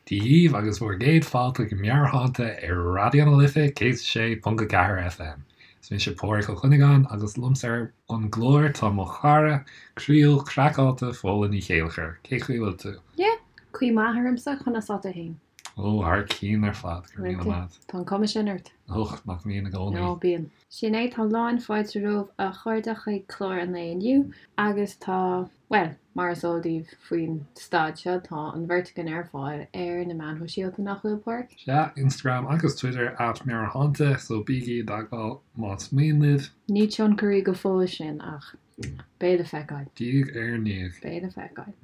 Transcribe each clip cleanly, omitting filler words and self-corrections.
Dia dhíbh agus bhur gcéad fáilte go Meabhairshláinte ar Raidió na Life 106.4 FM. Is mise Pádhraic Ó Cuinneagáin agus liomsa ar an gclár tá mo chara croíúil craiceáilte Fódhla Ní Chéilleachair. Cén chaoi a bhfuil tú? Yeah, caoi maith ormsa, conas tá tú fhéin? Ó, thar cionn ar fad, go raibh míle maith. Tá an cuma sin ort. Och, nach mbíonn i gcónaí. Ó, bíonn. Sin é, tá lán fáilte romhaibh a chairde chuig clár an lae inniu agus tá, bhuel, mar is eol daoibh faoin staid seo, tá an bheirt againn ar fáil ar na meáin shóisialta, nach bhfuil, Pádraic? Sea, Instagram agus Twitter at Meabhairshláinte, so bígí i dteagmháil más mian libh. Ní tionchairí go fóill sinn ach beidh le feiceáil. Diaidh ar ndiaidh. Beidh le feiceáil.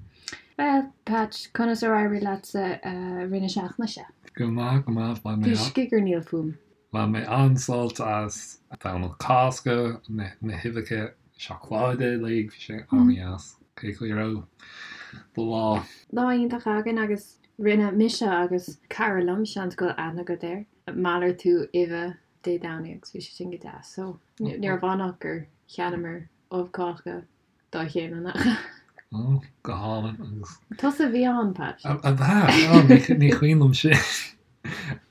Bhuel, Patch, conas ar éirigh leatsa i rith na seachtaine seo? Go maith, go maith, bhain mé. Bhí scigairníl fúm. Bhain mé an-sult as Domhnach Cásca, na huibheacha seacláide uilig, bhí sé an-dheas. Cén chaoi a raibh do lá? Lá iontach againn agus rinne mise agus cara liom, seans go bhfuil aithne agat air, malartú uibhe Dé Domhnaigh agus bhí sé sin go deas. So, ní raibh ann ach gur cheannaíomar ubh Cásca dá chéile nach ea? Ó, go hálainn agus. Tusa a bhí ann, Pat. Ab ea? Ó, ní cuimhin liom sin.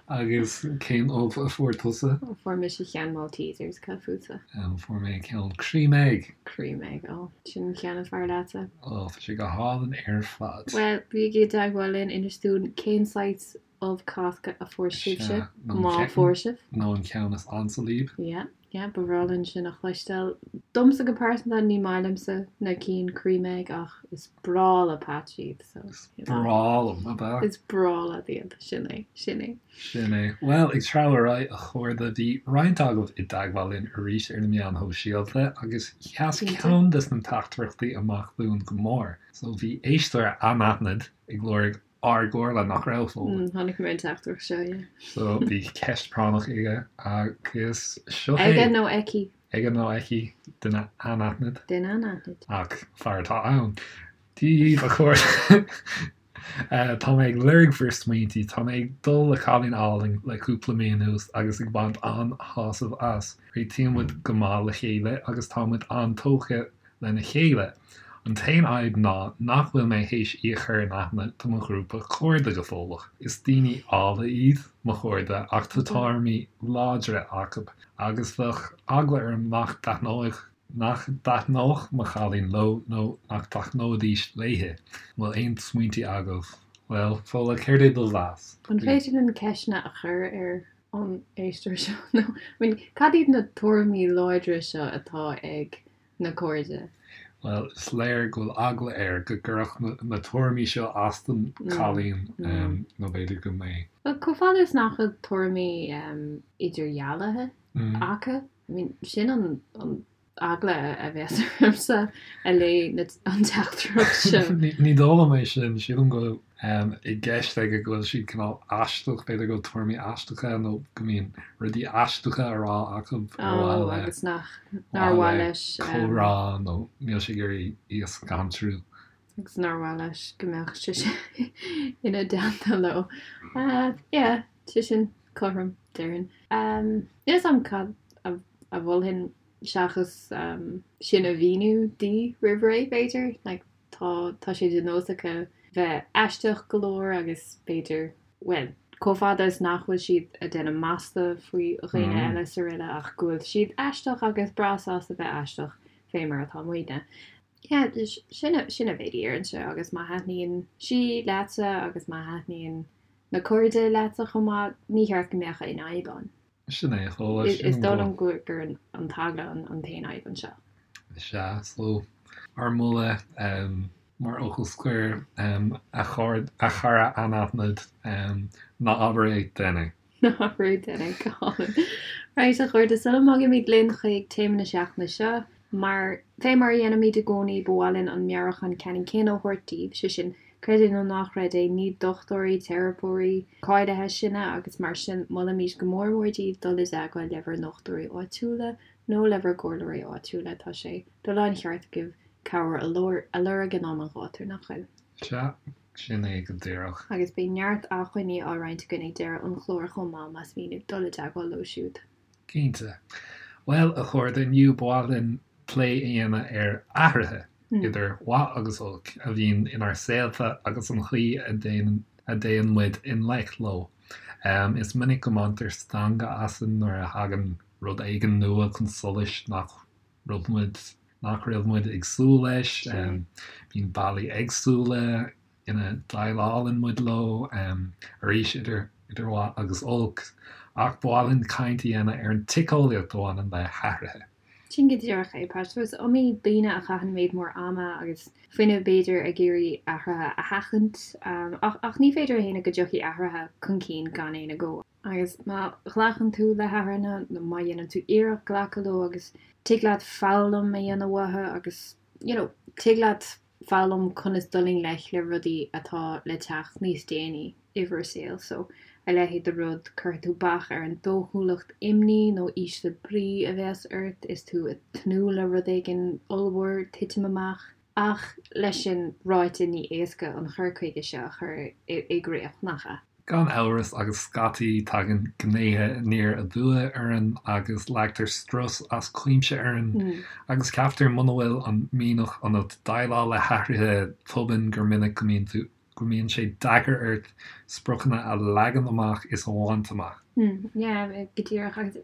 Agus cén ubh a fuair tusa? Fuair mise ceann Maltesers, cad fútsa? Fuair mé ceann Cream Egg. Cream Egg, ó, sin an ceann is fearr leatsa. Ó, tá sé go hálainn ar fad. Bhuel, bígí i dteagmháil linn, inis dúinn cén saghas ubh Cásca a fuair sibhse, má fuair sibh. Nó an ceann is ansa libh. Yeah, yeah, ba bhreá linn sin a chloisteáil. Domsa go pearsanta, ní maith liomsa na cinn cream egg ach is breá le Patch iad, so. Is breá liom, ab ea? Is breá leat iad, sin é, sin é. Sin é. Bhuel, ag treabhadh ar aghaidh, a chairde, bhí roinnt agaibh i dteagmháil linn arís ar na meáin shóisialta agus sheas ceann des na teachtaireachtaí amach dúinn go mór. So bhí éisteoir anaithnid ag lorg ár gcomhairle nach raibh, Fódhla. Chonaic mé an teachtaireacht seo, yeah. So bhí ceist práinneach aige agus seo é. Aige nó aici. Aige nó aici, duine anaithnid. Duine anaithnid. Ach fear atá ann. Dia dhíbh a chairde. Tá mé ag lorg bhur smaointí. Tá mé ag dul le cailín álainn le cúpla mí anuas agus ag baint an-shásamh as. Réitíonn muid go maith le chéile agus tá muid an-tógtha lena chéile. An t-aon fhadhb ná nach bhfuil mé théis í a chur in aithne do mo ghrúpa cairde go fóilleach. Is daoine áille iad mo chairde ach tá tuairimí láidre acu agus bheadh eagla orm nach dtaitneodh nach dtaitneodh mo chailín leo nó nach dtaitneoidís léi. An bhfuil aon smaointe agaibh? Bhuel, Fódhla, céard é do mheas? An féidir linn ceisteanna a chur ar an éisteoir seo? Nó, I mean, cad iad na tuairimí láidre seo atá ag na cairde. Bhuel, is léir go bhfuil eagla air go gcuirfeadh na tuairimí seo as don chailín, nó b'fhéidir go mbeidh. Bhuel, chomh fada is nach bhfuil tuairimí idirdhealaithe acu, I mean, sin an eagla a bheas ormsa a léigh an teachtaireacht seo. Ní dóigh liom é sin, sílim go bhfuil i gceist aige go bhfuil siad cineál aisteach, b'fhéidir go bhfuil tuairimí aisteacha nó go mbíonn rudaí aisteacha á rá acu ar mhaith le agus nach nár mhaith leis comhrá nó níl sé ag iarraidh í a scanrú. Agus nár mhaith leis go mbeadh sise ina dteannta leo. Yeah, sé sin cothrom, déarfainn. Níl a fhios agam cad a mholfainn seachas sin a mhíniú di roimh ré, b'fhéidir. Like, Tá, tá sé de nós acu bheith aisteach go leor agus b'fhéidir, bhuel, chomh fada is nach bhfuil siad ag déanamh masla faoi dhaoine eile is araile ach go bhfuil siad aisteach agus breá sásta bheith aisteach fé mar atá muidne. Yeah, sin a, sin an mhéid a déarfainnse agus má thaitníonn sí leatsa agus má thaitníonn na cairde leatsa chomh maith, ní cheart go mbeadh aon fhadhb ann. Sin é, Fódhla, sin Is dóigh liom gur an t-eagla an t-aon fhadhb anseo. Sea, so, ár moladh mar fhocal scoir, a chara anaithnid, ná abair é, déan é. Ná abair é, déan é, go hálainn. Right, a chairde, sula mbogaimid linn chuig téama na seachtaine seo, mar, fé mar a dhéanaimid i gcónaí, ba mhaith linn an meabhrúchán ceannann céanna a thabhairt daoibh, sé sin, Creid é nó ná creid é, ní dochtúirí, teiripeoirí cáilithe sinne agus mar sin molaimid go mór mór daoibh dul i dteagmháil le bhur ndochtúirí áitiúla nó le bhur gcomhairleoirí áitiúla. Tá sé de láncheart agaibh cabhair a lorg in am an ghátair, nach bhfuil? Sea, sin é go díreach. Agus beidh neart acmhainní á roinnt againn ag deireadh an chláir chomh maith más mian libh dul i dteagmháil leo siúd. Cinnte. Bhuel, a chairde, inniu ba mhaith linn plé a dhéanamh ar athruithe, idir mhaith agus olc, a bhíonn inár saolta agus an chaoi a ndéanann. a dtéann muid i ngleic leo. Is minic go mbaintear stangadh asainn nuair a thagann rud éigin nua chun solais nach raibh muid nach raibh muid ag súil leis. Bíonn bealaí éagsúla ina ndéileálann muid leo, arís idir idir mhaith agus olc, ach ba mhaith linn caint a dhéanamh ar an tsíceolaíocht a bhaineann le hathruithe. Sin go díreach é, Pat. So is iomaí daoine a chaitheann méid mór ama agus fuinnimh, b'fhéidir, ag iarraidh athruithe a sheachaint. Ach, ach ní féidir a shéanadh go dtiocfaidh athruithe chun cinn gan aon agó. Agus má ghlacann tú le hathruithe, nó má dhéanann tú iarracht glacadh leo agus tig leat foghlaim a dhéanamh uathu agus, you know, tig leat foghlaim conas dul i ngleic le rudaí atá le teacht níos déanaí i bhur saol. So, a leithéid de rud, cuirfidh tú bac ar an dóchúlacht imní nó ísle brí a bheas ort is tú ag tnúth le rud éigin ollmhór titim amach. Ach leis sin ráite ní éasca an chur chuige seo a chur i gcrích, nach ea? Gan amhras, agus scaití tagann gnéithe aniar aduaidh orainn agus leagtar strus as cuimse orainn agus ceaptar muna bhfuil an mianach ionat déileáil le hathruithe tobann gur minic go mbíonn tú go mbíonn sé deacair ort spriocanna a leagan amach is a bhaint amach. Yeah, go díreach. Agus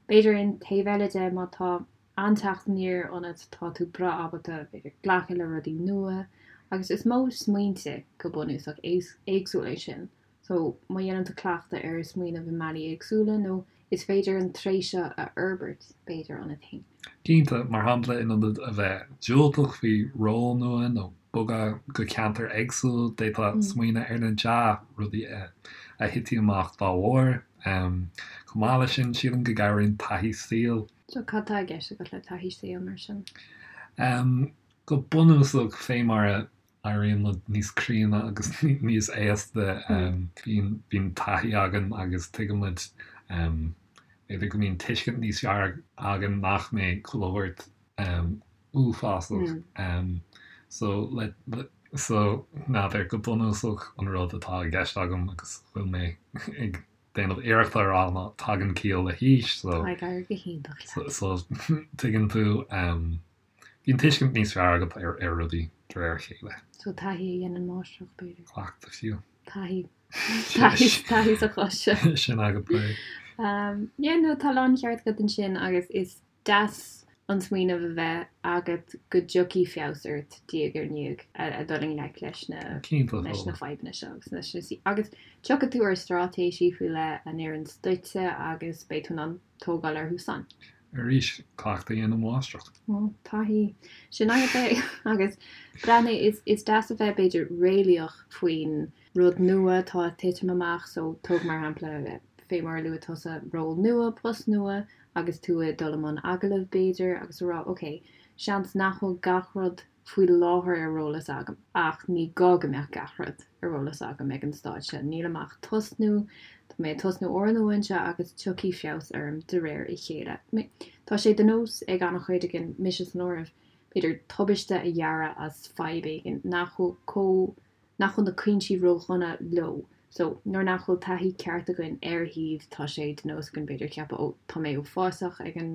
b'fhéidir an taobh eile de má tá an-teacht aniar ionat, tá tú breá ábalta, b'fhéidir, glacadh le rudaí nua agus is modh smaointe go bunúsach éagsúil é sin. So, má dhéanann tú cleachtadh ar smaoineamh i mbealaí éagsúla nó is féidir an tréith seo a fhorbairt, b'fhéidir, ionat féin. Cinnte, mar shampla, in ionad a bheith diúltach faoi ról nua nó bogadh go ceantar éagsúil, d'fhéadfá smaoineamh ar na dea-rudaí a thitfidh amach dá bharr. Chomh maith leis sin, sílim go gcabhraíonn taithí saoil. So cad tá i gceist agat le taithí saoil mar sin? Go bunúsach, fé mar a éiríonn muid níos críonna agus níos aosta, bíonn, bíonn taithí againn agus tuigeann muid, b'fhéidir go mbíonn tuiscint níos fearr againn nach mbeidh chuile shórt uafásach. So, le, le, so, n'fheadar, go bunúsach an rud atá i gceist agam agus bhfuil mé ag déanamh iarrachta a rá ná tagann ciall le haois so Tá ag éirí go hiontach leat. so tuigeann tú bíonn tuiscint níos fearr agat ar ar rudaí de réir a chéile. So taithí a dhéanann máistreacht b'fhéidir. Cleachtadh fiú. Taithí. Taithí taithí sa chás seo. Sin agat é. Yeah no tá láncheart agat ansin agus is deas an smaoineamh a bheith agat go dtiocfaidh feabhas ort diaidh ar ndiaidh a dul i ngleic leis na leis na fadhbanna seo agus leis na agus tiocfaidh tú ar straitéisí faoi leith a n-oireanns duitse agus beidh tú in ann tógáil orthu san. Arís, cleachtadh a dhéanann máistreacht. Ó, taithí. Sin agat é. Agus breathnaigh, is is deas a bheith b'fhéidir réalaíoch faoin rud nua atá ag titim amach so tóg mar shampla fé mar a luaigh tusa ról nua, post nua, agus tú ag dul i mbun agallaimh, b'fhéidir, agus a rá, ok, seans nach bhfuil gach rud faoi láthair ar eolas agam, ach ní gá go mbeadh gach rud ar eolas agam ag an staid seo. Nílim ach tosnú, tá mé ag tosnú úrnua anseo agus tiocfaidh feabhas orm de réir a chéile. Tá sé de nós ag an-chuid againn, mise san áireamh, b'fhéidir, tubaiste a dhearadh as fadhb éigin nach bhfuil chomh nach bhfuil na cúinsí ródhona leo. So, nuair nach bhfuil taithí ceart againn ar shuíomh, tá sé de nós againn b'fhéidir ceapadh ó tá mé uafásach ag an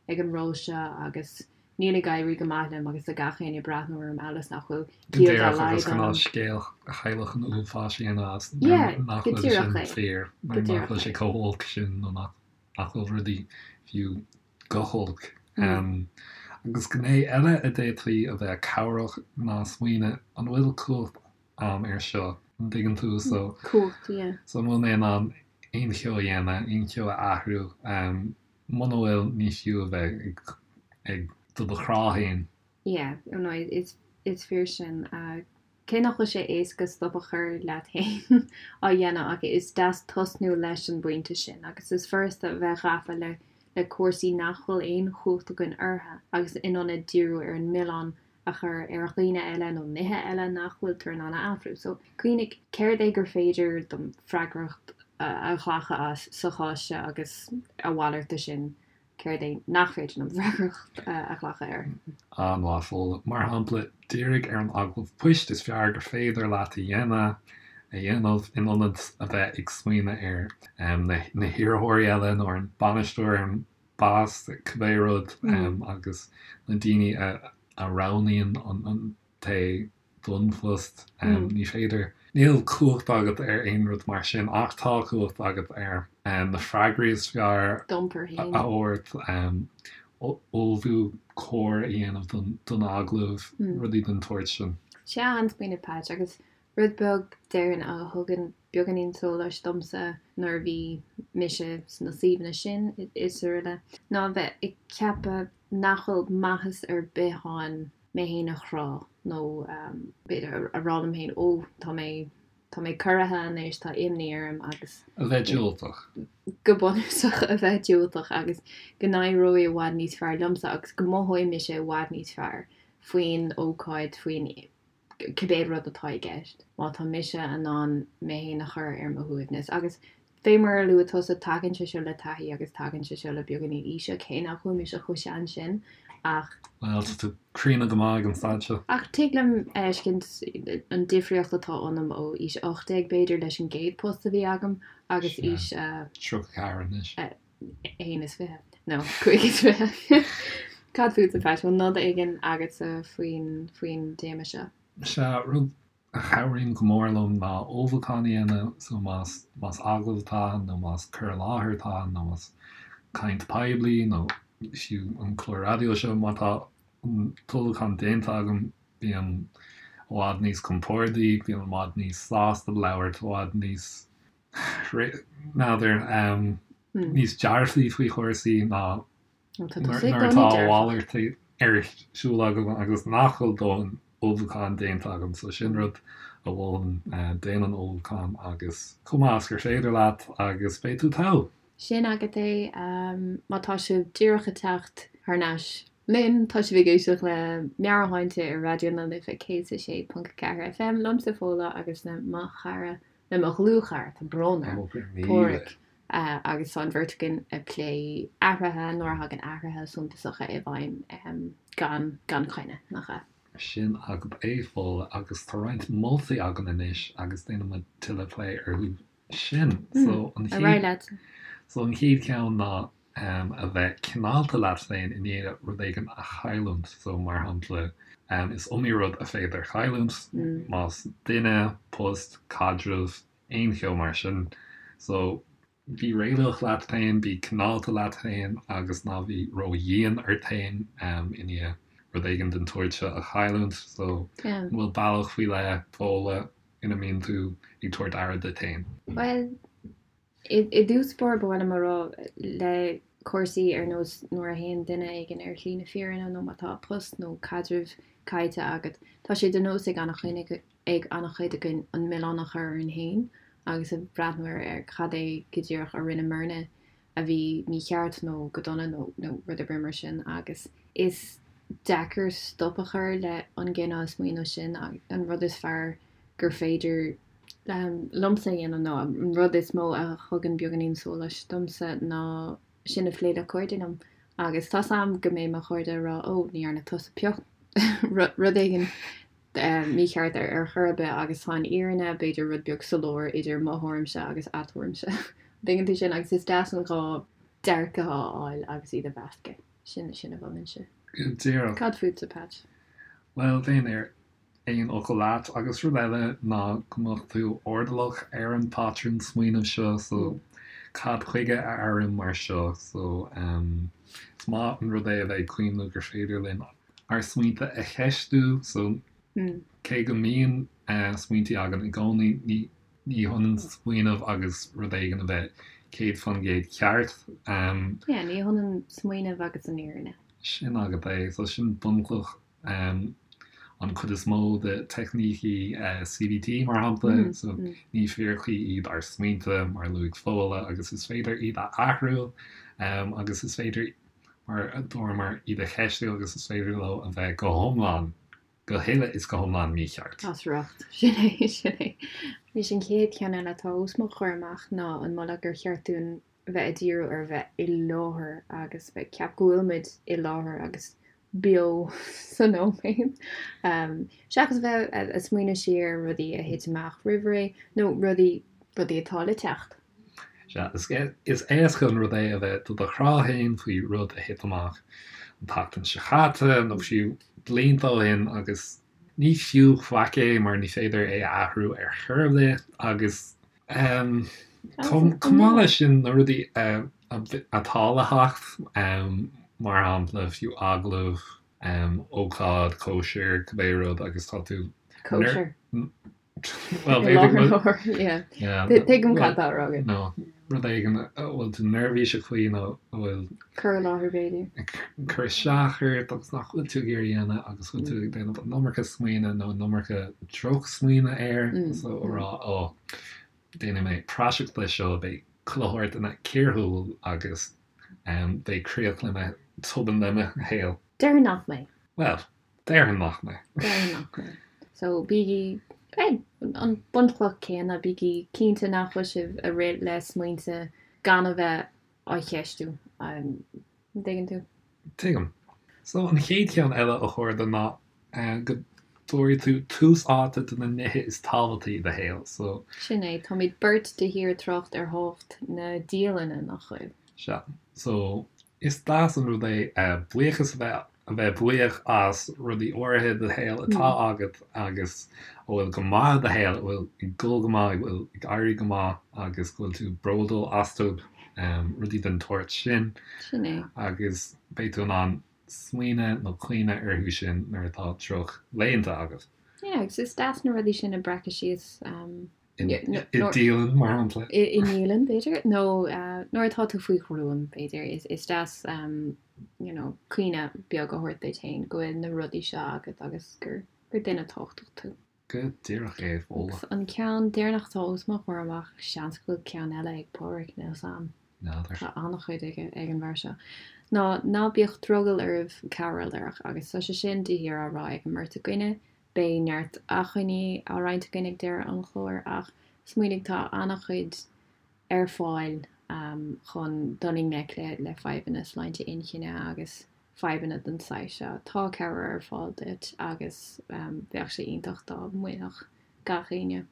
ag an ról seo agus níl ag éirí go maith liom agus tá gach éinne ag breathnú orm amhail is nach bhfuil Go ciall dá díreach agus laghad cineál ionam. scéal chailleach an uafáis a dhéanamh as nuair Yeah, nach go bhfuil sin díreach é. fíor, Go nuair nach díreach bhfuil sé é. chomh holc sin nó nach nach bhfuil rudaí fiú go holc. Agus gné eile a d'fhéadfaí a bheith cabhrach ná smaoineamh an bhfuil cumhacht a'm air seo, an dtuigeann tú? So, Cumhacht, yeah. so an bhfuil mé in ann aon cheo a dhéanamh, aon cheo a athrú? Muna bhfuil, ní fiú a bheith ag, ag do do chrá féin. Yeah, no, is, is fíor sin. Cé nach bhfuil sé éasca stop a chur leat féin á dhéanamh ach is deas tosnú leis an bpointe sin agus is furasta a bheith gafa le le cúrsaí nach bhfuil aon chumhacht againn orthu agus in ionad díriú ar an milleán a chur ar dhaoine eile nó nithe eile nach bhfuiltear in ann a athrú. So, cuimhnigh, céard é gur féidir dom freagracht a ghlacadh as sa chás seo agus a mhalairt de sin Céard é nach féidir liom freagracht a ghlacadh air? An-mhaith, Fódhla. Mar shampla, dírigh ar an agallamh poist is fearr gur féidir leat a dhéanamh, a dhéanamh, in ionad a bheith ag smaoineamh ar na hiarrthóirí eile nó ar an bainisteoir, ar an boss, cibé rud, agus na daoine a roghnaíonn an té don phost. Ní féidir. Níl cumhacht agat ar aon rud mar sin ach tá cumhacht agat ar na freagraí is fearr a thabhairt, ullmhú cóir a dhéanamh don agallamh, rudaí den tsórt sin. Sea, an-smaoineamh Patch, agus rud beag déarfainn a thugann beagáinín sóláis domsa nuair a bhí mise sna suíomhanna sin is araile, ná a bheith ag ceapadh nach bhfuil maitheas ar bith ann mé féin a chrá nó b'fhéidir a rá liom féin 'ó tá mé, tá mé corraithe anois, tá imní orm' agus. A bheith diúltach. Go bunúsach a bheith diúltach agus go n-éireoidh i bhfad níos fearr liomsa agus go mothóidh mise i bhfad níos fearr faoin ócáid, faoin cibé rud atá i gceist, má tá mise in ann mé féin a chur ar mo shuaimhneas. Agus fé mar a luaigh tusa, tagann sé seo le taithí agus tagann sé seo le beagáinín aoise, cé nach bhfuil mise chomh sean sin ach. Bhuel, tá tú críonna go maith ag an staid seo. Ach tig liom a fheiscint an difríocht atá ionam ó aois 18 b'fhéidir leis an gcéad post a bhí agam agus aois. 34 anois. 21 nó 25. Cad fútsa, Pat? Bhfuil nod éigin agatsa faoin faoin dtéama seo? Sea, rud a chabhraíonn go mór liom ná ullmhúchán a dhéanamh, so más más agallamh atá ann nó más cur i láthair atá ann nó más caint poiblí nó fiú an clár raidió seo, má tá an t-ullmhúchán déanta agam bím i bhfad níos compordaí, bím i bhfad níos sásta labhairt, i bhfad níos n'fheadar, níos dearfaí faoi chúrsaí ná nuair atá a mhalairt ar siúl agam agus nach bhfuil dóthain ullmhúcháin déanta agam. So sin rud a mholfainn, déan an ullmhúchán agus chomh maith is gur féidir leat agus beidh tú togha. Sin agat é. Má tá sibh díreach ag teacht thar n-ais linn, tá sibh ag éisteacht le Meabhairshláinte ar Raidió na Life 106.4 FM, liomsa Fódhla agus le mo chara le mo dhlúthchara, tá brón orm, Páraic, agus tá an bheirt againn ag plé athruithe, nuair a thagann athruithe suntasacha i bhfeidhm gan gan choinne, nach ea? Sin agat é, Fódhla, agus tá roinnt moltaí againn anois agus déanfaidh muid tuilleadh plé orthu sin. So an chéad, so an chéad cheann ná a bheith cineálta leat féin i ndiaidh rud éigin a chailliúint. So, mar shampla, is iomaí rud a féidir a chailliúint, más duine, post, caidreamh, aon cheo mar sin. So, bí réalaíoch leat féin, bí cineálta leat féin agus ná bí ródhian ort féin i ndiaidh rud éigin den tsórt seo a chailliúint. So, an bhfuil bealach faoi leith, Fódhla, ina mbíonn tú ag tabhairt aire duit féin? Bhuel, I dtús báire ba mhaith liom a rá le cúrsaí ar nós nuair a théann duine éigin ar shlí na fírinne nó má tá post nó caidreamh caillte agat, tá sé de nós ag an-chuid againn an milleán a chur orainn féin agus a bhreathnú ar cad é go díreach a rinneamarna a bhí mícheart nó go dona nó rud ar bith mar sin agus is deacair stop a chur le an gcineál smaoineamh sin an rud is fearr gur féidir liomsa a dhéanamh nó an rud is mó a thugann beagáinín sóláis domsa ná sin a phlé le cairde liom agus tá's a'm go mbeidh mo chairde ag rá 'ó ní dhearna tusa pioc rud éigin mícheart ar ar chor ar bith' agus tá an fhírinne b'fhéidir rud beag sa lár idir mo thuairimse agus a tuairimse. Tuigeann tú sin agus is deas an dhá dearcadh a fháil agus iad a mheascadh. Sin sin a mholfainnse. Go díreach. Cad fútsa, Patch? Bhuel, bheinn ar aon fhocal leat. Agus rud eile ná go mbeadh tú airdeallach ar an bpatrún smaoinimh seo, so cad chuige a airím mar seo? So is maith an rud é a bheith ag cuimhneamh gur féidir linn ár smaointe a cheistiú, so cé go mbíonn smaointe againn i gcónaí, ní ní hionann smaoineamh agus rud éigin a bheith 100% ceart. Yeah, ní hionann smaoineamh agus an fhírinne. Sin agat é, so sin bunchloch an chuid is mó de teicnící CBT, mar shampla, so ní fíricí iad ár smaointe, mar a luaigh Fódhla, agus is féidir iad a athrú agus is féidir, mar a dúramar, iad a cheistiú agus is féidir leo a bheith go hiomlán, go huile is go hiomlán mícheart. As riocht. Sin é, sin é. Anois an chéad cheann eile atá os mo chomhair amach ná an moladh gur cheart dúinn bheith ag díriú ar bheith i láthair agus bheith ag ceapadh go bhfuil muid i láthair agus beo sa nóiméad, seachas bheith ag smaoineamh siar ar rudaí a thit amach roimh ré nó rudaí rudaí atá le teacht. Sea, is éasca an rud é a bheith do do chrá féin faoi rud a thit amach an tseachtain seo caite nó fiú blianta ó shin agus. Ní fiú faic é mar ní féidir é a athrú ar chor ar bith agus chomh maith leis sin na rudaí atá le theacht, mar shampla fiú agallamh, ócáid, cóisir, cibé rud agus tá tú. Cóisir. Well, b'fhéidir yeah. Yeah. Tuigim cad tá á rá agat. No, rud éigin a bhfuil tú neirbhíseach faoi nó a bhfuil. Cur i láthair b'fhéidir. Cur isteach ort agus nach bhfuil tú ag iarraidh a dhéanamh agus bhfuil tú ag déanamh an iomarca smaoineamh nó an iomarca drochsmaoineamh air so a rá ó déanfaidh mé praiseach de seo beidh chuile shórt ina ciarshúil agus beidh críoch le mo tobann le mo shaol. Déarfainn nach mbeidh. Well, Déarfainn nach mbeidh. Déarfainn nach mbeidh. So, bígí, eh, an bunchloch céanna, bígí cinnte nach bhfuil sibh ag rith le smaointe gan a bheith á cheistiú. An dtuigeann tú? Tuigim. So, an chéad cheann eile a chairde ná go dtabharfaidh tú tús áite do na nithe is tábhachtaí i do shaol. So. Sin é, táimid beirt de shíor ag trácht ar thábhacht na dialainne, nach bhfuil? Sea. So, is deas an rud é buíochas a bheith a bheith buíoch as rudaí áirithe i do shaol atá agat agus a bhfuil go maith i do shaol, a bhfuil ag dul go maith, a bhfuil ag éirí go maith agus go bhfuil tú bródúil astu, rudaí den tsórt sin. Sin é. Agus beidh tú in ann smaoineamh nó cuimhneamh orthu sin nuair atá drochlaethanta agat. Yeah, agus is deas na rudaí sin a bhreacadh síos. I ndialann, mar shampla. I ndialann, b'fhéidir, nó nuair atá tú faoi ghruaim, b'fhéidir. Is deas you know, cuimhne beag a thabhairt duit féin go bhfuil na rudaí seo agat agus gur duine tábhachtach tú. Go díreach é, Fódhla. Agus an ceann deireanach atá os mo chomhair amach, seans go bhfuil ceann eile ag Pádraig, níl 's a'm. N'fheadar. Tá an-chuid aige ag an bhfear seo. Ná ná bíodh drogall oraibh cabhair a lorg agus tá sé sin de shíor á rá ag an mbeirt againne. Beidh neart acmhainní á roinnt againn ag deireadh an chláir ach smaoinigh tá an-chuid ar fáil chun dul i ngleic le fadhbanna sláinte inchinne agus fadhbanna den saghas seo. Tá cabhair ar fáil duit agus bheadh sé iontach dá mbainfeadh gach éinne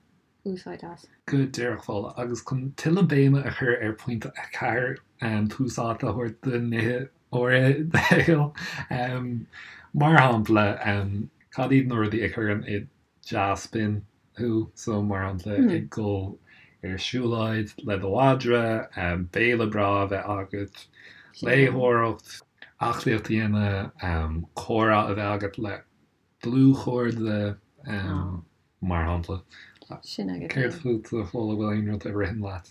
úsáid as. Go díreach, Fódhla. Agus chun tuilleadh béime a chur ar phointe 4, tús áite a thabhairt do nithe áirithe i do shaol. Mar shampla, cad iad na rudaí a chuireann i dea-spion thú? So, mar shampla, ag dul ar siúlóid le do mhadra, béile breá a bheith agat, léitheoireacht, aclaíocht a dhéanamh, comhrá a bheith agat le dlúthchairde, mar shampla. Sin agat é. Céard fút, a Fódhla, bhfuil aon rud a ritheann leat?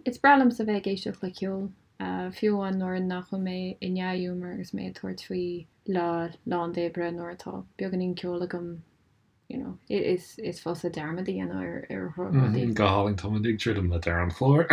Is breá liomsa bheith ag éisteacht le ceol, fiú amháin nuair nach bhfuil mé i ndea-ghiúmar agus mé ag tabhairt faoi lá lán d'oibre nuair atá beagáinín ceoil agam, you know, is is fusa dearmad a dhéanamh ar ar rudaí. Go hálainn, táimid ag druidim le deireadh an chláir.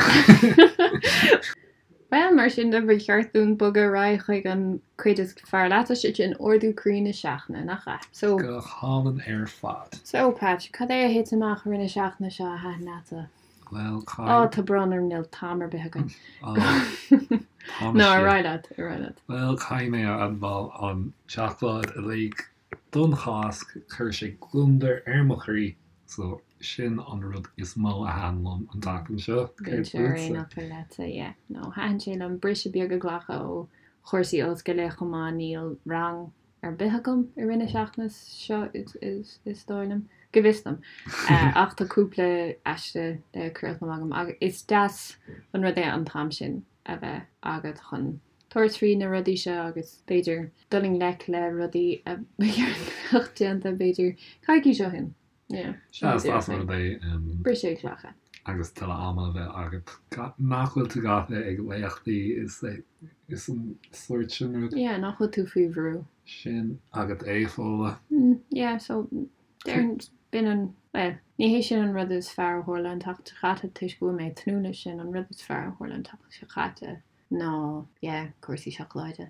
Bhuel, mar sin de, ba cheart dúinn bogadh ar aghaidh chuig an cuid is fearr leat, sé sin ardú croí na seachtaine, nach ea? So. Go hálainn ar fad. So, Patch, cad é a thit amach i rith na seachtaine seo a thaitin leatsa? Bhuel, caithfidh. Ó, tá brón orm, níl t-am ar bith againn. Ó, tá No, ar aghaidh leat, ar aghaidh leat. Bhuel, caithfidh mé a admháil an tseacláid uilig don Cháisc, chuir sé gliondar ar mo chroí, so sin an rud is mó a thaitin liom an tseachtain seo. Céard Bheinnse ar aon fhót'fhocal leatsa, yeah. No, thaitin sé liom briseadh beag a ghlacadh ó chúrsaí ollscoile chomh maith, níl rang ar bith agam i rith na seachtaine seo is dóigh liom, go bhfios dom. Ach tá cúpla aiste le críochnú agam agus is deas an rud é an t-am sin a bheith agat chun tabhairt faoi na rudaí seo agus b'fhéidir dul i ngleic le rudaí a ba cheart go mbeadh déanta b'fhéidir coicís ó shin. Yeah. Sea, is deas an rud é. Briseadh a ghlacadh. Agus tuilleadh ama a bheith agat nach bhfuil tú gafa ag léachtaí is is an sórt sin rud. Yeah, nach bhfuil tú faoi bhrú. Sin agat é, Fódhla. Yeah, so déarfainn b'in an, bhuel, ní hé sin an rud is fearr a tharla an tseachtain seo caite toisc go bhfuil mé ag tnúth leis sin, an rud is fearr a tharla an tseachtain seo caite ná, yeah, cúrsaí seacláide.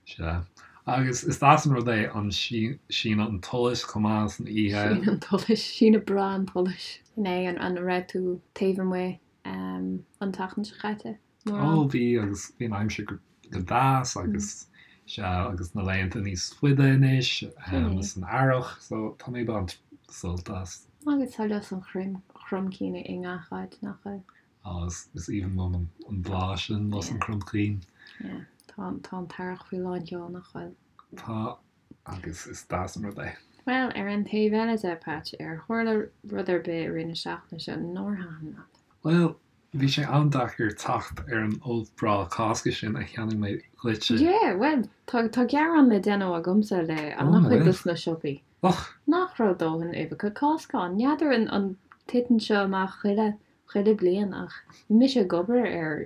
Sea. Agus is deas an rud é an síneadh an tsolais chomh maith san oíche. Síneadh an tsolais, síneadh breá an tsolais. Sin é, an raibh tú taobh amuigh an tseachtain seo caite? Ó bhí agus bhí an aimsir go deas agus sea agus na laethanta níos faide anois san earrach so tá mé ag baint sult as. Agus tá lus an chromchinn i ngach áit, nach bhfuil? Á, is aoibhinn liom an bláth sin, lus an chromchinn. Yeah, tá an t-earrach faoi lán sheol, nach bhfuil? Tá, agus is deas an rud é. Bhuel, ar an taobh eile de, Patch, ar tharla rud ar bith i rith na seachtaine seo nár thaitin leat? Bhuel, bhí sé an-deacair teacht ar an ubh breá Cásca sin a cheannaigh mé dhuitse. Yeah, bhuel, tá, tá gearán le déanamh agamsa le an-chuid dos na siopaí. Och! Nach raibh dóthain uibheacha Cásca ann. N'fheadar an, an titeann seo amach chuile, chuile bliain ach bhí mise ag obair ar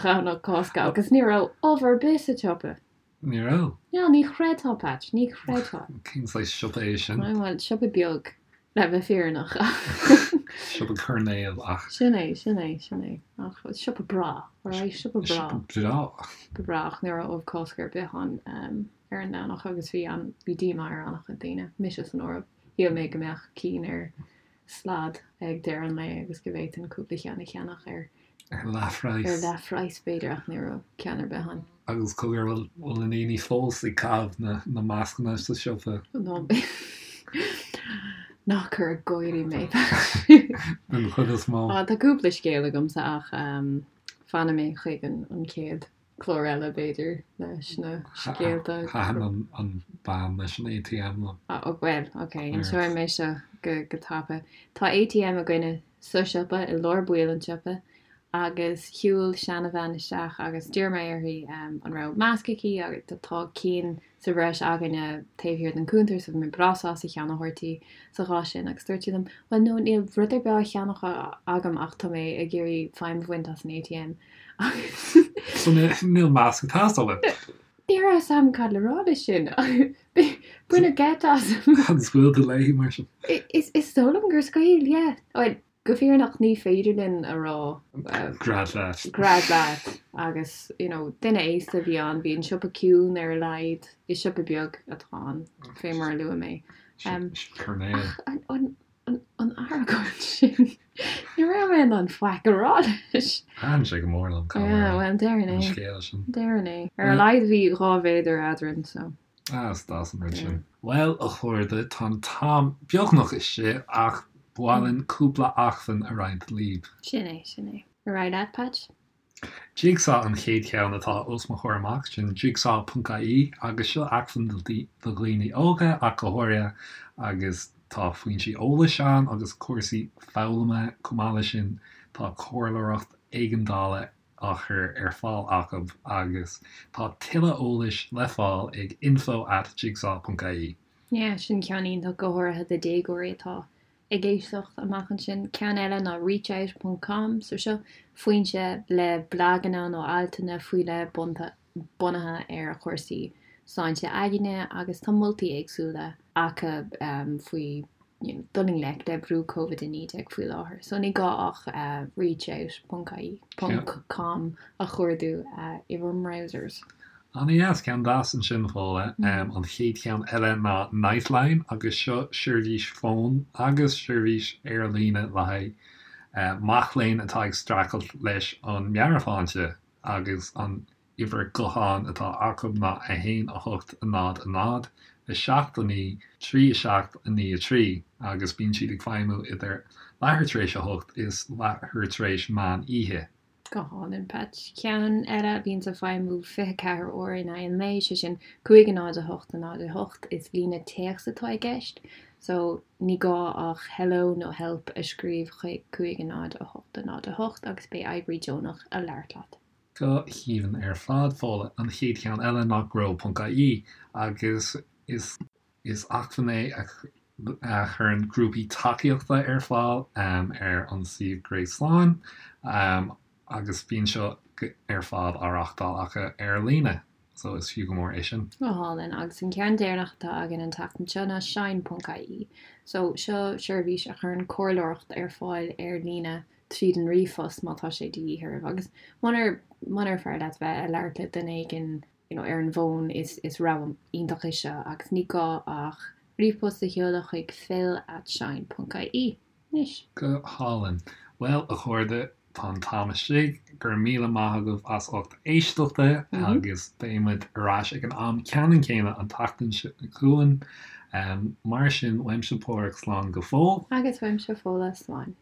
Dhomhnach Cásca agus ní raibh ubh ar bith sa tsiopa. Ní raibh. No, ní chreidfeá, Patch, ní chreidfeá. Cén saghas siopa é sin? Bhuel, siopa beag, le bheith fírinneach. Siopa coirnéil ach. Sin é, sin é, sin é. Ach siopa breá, alright, siopa breá. Siopa breá. Siopa breá ach ní raibh ubh Cásca ar bith ann ar an Domhnach agus bhí an, bhí díomá ar an-chuid daoine, mise san áireamh. Shíl mé go mbeadh cinn ar slad ag deireadh an lae agus go bhféadfainn cúpla cheann a cheannach ar Ar leathphraghas. Ar leathphraghas b'fhéidir ach ní raibh ceann ar bith ann. Agus cogar bhfuil bhfuil na daoine fós ag caitheamh na na mascanna sa siopa? Ná ná cuir ag gáirí mé. Den chuid is mó. Á tá cúpla scéal agamsa ach fanfaidh mé chuig an an chéad clár eile b'fhéidir leis na scéalta. Thaitin an bean leis an ATM liom. Ó bhuel ok inseoidh mé seo go go tapa. Tá ATM againne sa siopa i lár baill an tsiopa agus shiúil seanabhean isteach agus d'iarr mé uirthi an raibh masc aici agus tá cinn sa bhreis againne taobh thiar den cuntar so bhí mé breá sásta ceann a thabhairt di sa chás sin agus dúirt sí liom bhuel no níl rud ar bith á cheannach agam ach tá mé ag iarraidh feidhm a bhaint as an ATM agus So níl masc ag teastáil uait? Ní raibh a fhios agam cad le rá leis sin. Baineadh geit asam. An scaoil tú léi mar sin? Is dóigh liom gur scaoil, yeah. Bhuel, go fírinneach ní féidir linn a rá. Gread leat. Gread leat. Agus, you know, duine aosta a bhí ann, bhí an siopa ciúin ar a laghad, is siopa beag atá ann, fé mar a luaigh mé. Coirnéal. Ach an, an, an argóint sin, ní raibh mé in ann faic a rá leis. Thaitin sé go mór liom, caithfidh mé a rá. Yeah, bhuel, déarfainn é. An scéal sin. Déarfainn é. Ar a laghad bhí 2 mhéadar eadrainn, so. Ah, is deas an rud sin. Bhuel, a chairde, tá an t-am beagnach istigh ach ba mhaith linn cúpla acmhainn a roinnt libh. Sin é, sin é. Ar aghaidh leat, Patch. Jigsaw an chéad cheann atá os mo chomhair amach, sin jigsaw.ie agus seo acmhainn do dhaoine óga ach go háirithe agus tá foinsí eolais ann agus cúrsaí foghlama chomh maith leis sin tá comhairleoireacht éigeandála á chur ar fáil acu agus tá tuilleadh eolais le fáil ag info at jigsaw ponc ie. Yeah, sin ceann iontach, go háirithe do déagóirí atá ag éisteacht amach ansin. Ceann eile ná reachout ponc com, so seo foinse le blaganna nó altanna faoi leith bunaithe ar chúrsaí sláinte aigne agus tá moltaí éagsúla acu faoi you know, dul i ngleic le brú Covid-19 faoi láthair. So ní gá ach reachout ponc ie ponc com a chuardú i bhur mbrowsers. An-dheas, ceann deas ansin Fódhla. An chéad cheann eile ná Nightline agus seo seirbhís fóin agus seirbhís ar líne le haghaidh mac léinn atá ag streachailt leis an meabhairshláinte agus an uimhir gutháin atá acu ná 1 8 0 0 7 9 3 7 9 3 agus bíonn siad ag feidhmiú idir leathuair tar éis a hocht is leathuair tar éis meán oíche. Go hálainn, Patch. Ceann eile a bhíonns ag feidhmiú 24 uair in aghaidh an lae, sé sin 5 0 8 0 8, is líne téacs atá i gceist, so ní gá ach hello nó help a scríobh chuig 5 0 8 0 8 agus beidh oibrí deonach a labhairt leat. Go haoibhinn ar fad, Fódhla. An chéad cheann eile ná grow.ie agus is is acmhainn é a chuireann grúpaí tacaíochta ar fáil ar an suíomh gréasáin agus bíonn seo ar fad á reáchtáil acu ar líne so is fiú go mór é sin. Go hálainn. Agus an ceann deireanach atá againn an tseachtain seo ná shine.ie. So seo seirbhís a chuireann comhairleoireacht ar fáil ar líne tríd an ríomhphost má tá sé de dhíth oraibh agus munar munar fearr leat bheith ag labhairt le duine éigin you know ar an bhfón is is rogha iontach é seo agus ní gá ach ríomhphost a sheoladh chuig phil at shine ponc ie anois. Go hálainn. Bhuel, a chairde, tá an t-am istigh. Go raibh míle maith agaibh as ucht éisteachta agus beidh muid ar ais ag an am ceannann céanna an tseachtain seo chugainn. Mar sin, uaimse Páraic slán go fóill. Agus uaimse Fódhla slán.